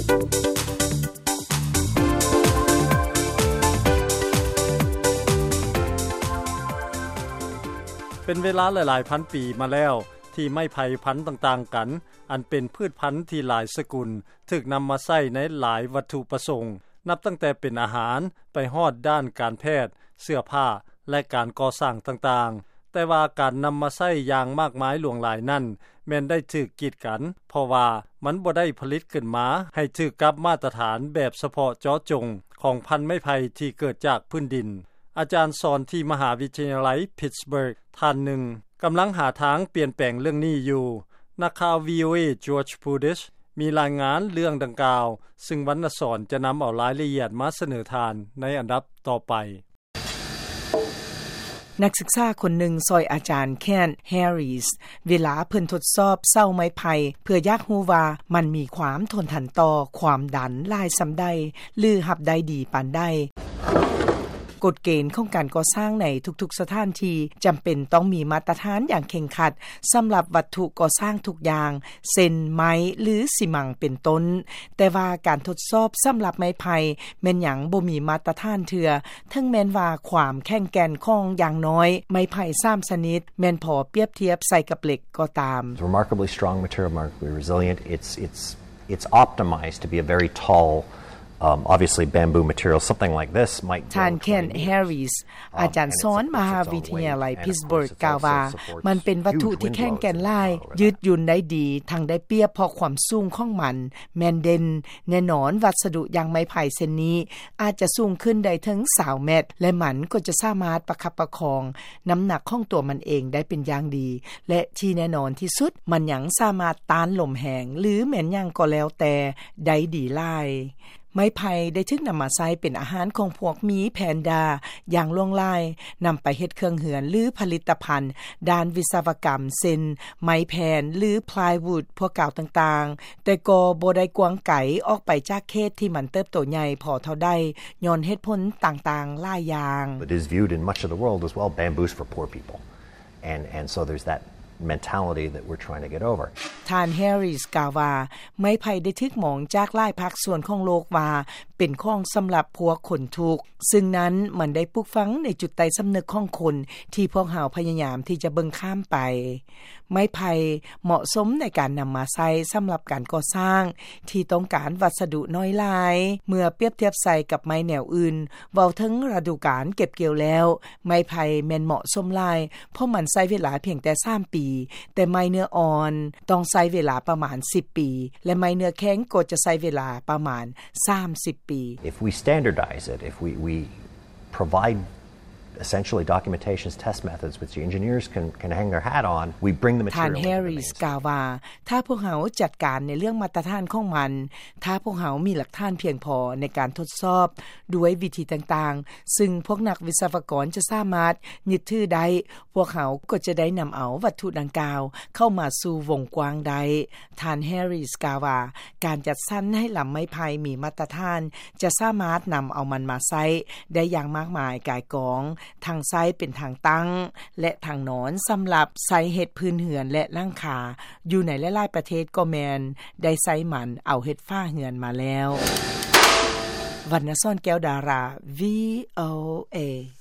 ເປັນເວລາຫຼາຍໆພັນປີມາແລ້ວ ທີ່ໄມ້ໄຜ່ພັນຕ່າງໆກັນ ອັນເປັນພືດພັນທີ່ຫຼາຍສະກຸນ ຖືກນຳມາໃຊ້ໃນຫຼາຍວັດຖຸປະສົງ ນັບຕັ້ງແຕ່ເປັນອາຫານ ໄປຮອດດ້ານການແພດ, ເສື້ອຜ້າ ແລະ ການກໍ່ສ້າງຕ່າງໆ. ແຕ່ວ່າການນຳມາໃຊ້ຢ່າງມາກມາຍຫຼວງຫຼາຍນັ້ນ ແມ່ນໄດ້ຖືກກີດກັນ ເພາະວ່າມັນບໍ່ໄດ້ຜະລິດຂຶ້ນມາໃຫ້ຖືກກັບມາດຕະຖານແບບສະເພາະເຈາະຈົງຂອງພັນໄມ້ໄຜ່ທີ່ເກີດຈາກພື້ນດິນ. ອາຈານສອນທີ່ມະຫາວິທະຍາໄລ Pittsburgh ທ່ານໜຶ່ງ ກຳລັງຫາທາງປ່ຽນແປງເລື່ອງນີ້ຢູ່. ນັກຂ່າວ ວີໂອເອ George Budish ມີລາຍງານເລື່ອງດັ່ງກ່າວ, ຊຶ່ງວັນນະສອນຈະນຳເອົາລາຍລະອຽດມາສະເໜີທ່ານໃນອັນດັບຕໍ່ໄປ. ນັກສຶກສາຄົນໜຶ່ງຊ່ອຍອາຈານ Kent Harris ເວລາເພິ່ນທົດສອບເສົາໄມ້ໄຜ່ ເພື່ອຢາກຮູ້ວ່າມັນມີຄວາມທົນທານຕໍ່ຄວາມດັນຫຼາຍສ່ຳໃດ ຫຼື ຮັບໄດ້ດີປານໃດ. ກົດເກນຂອງການກໍ່ສ້າງໃນທຸກໆສະຖານທີ່ຈຳເປັນຕ້ອງມີມາດຕະຖານຢ່າງເຄັ່ງຄັດສຳລັບວັດຖຸກໍ່ສ້າງທຸກຢ່າງ ເຊັ່ນ ໄມ້ ຫຼື ຊີມັງ ເປັນຕົ້ນ. ແຕ່ວ່າການທົດສອບສຳລັບໄມ້ໄຜ່ແມ່ນຍັງບໍ່ມີມາດຕະຖານເທື່ອ, ເຖິງແມ່ນວ່າຄວາມແຂງແກ່ນຂອງຢ່າງໜ້ອຍໄມ້ໄຜ່ສາມຊະນິດແມ່ນພໍປຽບທຽບໃສ່ກັບເຫຼັກກໍຕາມ. It's remarkably strong material, remarkably resilient. It's, it's, it's optimized to be a very tall, um, obviously bamboo material. Something like this might grow ທ່ານ Kent Harris ອາຈານສອນມະຫາວິທະຍາໄລ Pittsburgh ກ່າວວ່າ ມັນເປັນວັດຖຸທີ່ແຂງແກ່ນຫຼາຍ, ຢືດຫຍຸ່ນໄດ້ດີ, ທັງໄດ້ປຽບເພາະຄວາມສູງຂອງມັນແມ່ນເດັ່ນ. ແນ່ນອນ, ວັດສະດຸຢ່າງໄມ້ໄຜ່ເຊັ່ນນີ້ ອາດຈະສູງຂຶ້ນໄດ້ເຖິງຊາວແມັດ ແລະ ມັນກໍຈະສາມາດປະຄັບປະຄອງນ້ຳໜັກຂອງຕົວມັນເອງໄດ້ເປັນຢ່າງດີ ແລະ ທີ່ແນ່ນອນທີ່ສຸດ, ມັນຍັງສາມາດຕ້ານລົມແຮງ ຫຼື ແມ່ນຫຍັງກໍແລ້ວແຕ່ໄດ້ດີຫຼາຍ. ໄມ້ໄຜ່ໄດ້ຖືກນຳມາໃຊ້ເປັນອາຫານຂອງພວກໝີແພນດາຢ່າງຫຼວງຫຼາຍ, ນຳໄປເຮັດເຄື່ອງເຮືອນ ຫຼື ຜະລິດຕະພັນດ້ານວິສະວະກຳ ເຊັ່ນ ໄມ້ແຜ່ນ ຫຼື plywood ພວກກ່າວຕ່າງໆ, ແຕ່ກໍບໍ່ໄດ້ກວ້າງໄກອອກໄປຈາກເຂດທີ່ມັນເຕີບໂຕໃຫຍ່ພໍເທົ່າໃດ ຍ້ອນເຫດຜົນຕ່າງໆຫຼາຍຢ່າງ. It is viewed in much of the world as, well, bamboo's for poor people. And, and so there's that mentality that we're trying to get over. ທ່ານ Harris ກ່າວວ່າ ໄມ້ໄຜ່ໄດ້ຖືກມອງຈາກຫຼາຍພາກສ່ວນຂອງໂລກວ່າເປັນຂອງສຳລັບພວກຄົນທຸກ, ຊຶ່ງນັ້ນມັນໄດ້ປູກຝັງໃນຈຸດໃຕ້ສຳນຶກຂອງຄົນທີ່ພວກເຮົາພະຍາຍາມທີ່ຈະເບິ່ງຂ້າມໄປ. ໄມ້ໄຜ່ເໝາະສົມໃນການນຳມາໃຊ້ສຳລັບການກໍ່ສ້າງທີ່ຕ້ອງການວັດສະດຸໜ້ອຍຫຼາຍ ເມື່ອປຽບທຽບໃສ່ກັບໄມ້ແນວອື່ນ. ເວົ້າເຖິງລະດູການເກັບກ່ຽວແລ້ວ, ໄມ້ໄຜ່ແມ່ນເໝາະສົມຫຼາຍ ເພາະມັນໃຊ້ເວລາພຽງແຕ່ສາມປີ, ແຕ່ໄມ້ເນື້ອອ່ອນຕ້ອງໃຊ້ເວລາປະມານສິບປີ ແລະ ໄມ້ເນື້ອແຂງກໍຈະໃຊ້ເວລາປະມານສາມສິບປີ. If we standardize it, if we, we provide essentially documentations, test methods, which the engineers can, can hang their hat on, we bring the material into the mainstream. ທ່ານ Harris ກ່າວວ່າ ຖ້າພວກເຮົາຈັດການໃນເລື່ອງມາດຕະຖານຂອງມັນ, ຖ້າພວກເຮົາມີຫຼັກຖານພຽງພໍໃນການທົດສອບດ້ວຍວິທີຕ່າງໆ ຊຶ່ງພວກນັກວິສະວະກອນຈະສາມາດຍຶດຖືໄດ້, ພວກເຮົາກໍຈະໄດ້ນຳເອົາວັດຖຸດັ່ງກ່າວເຂົ້າມາສູ່ວົງກວ້າງໄດ້. ທ່ານ Harris ກ່າວວ່າ ການຈັດສັນໃຫ້ລຳໄມ້ໄຜ່ມີມາດຕະຖານ ຈະສາມາດນຳເອົາມັນມາໃຊ້ໄດ້ຢ່າງມາກມາຍກາຍກອງ, ທັງໃຊ້ເປັນທາງຕັ້ງ ແລະ ທາງນອນ ສຳລັບໃຊ້ເຮັດພື້ນເຮືອນ ແລະ ຫຼັງຄາ. ຢູ່ໃນຫຼາຍໆປະເທດກໍແມ່ນໄດ້ໃຊ້ມັນເອົາເຮັດຝາເຮືອນມາແລ້ວ. ວັນນະສອນ ແກ້ວດາລາ ວີ ໂອ ເອ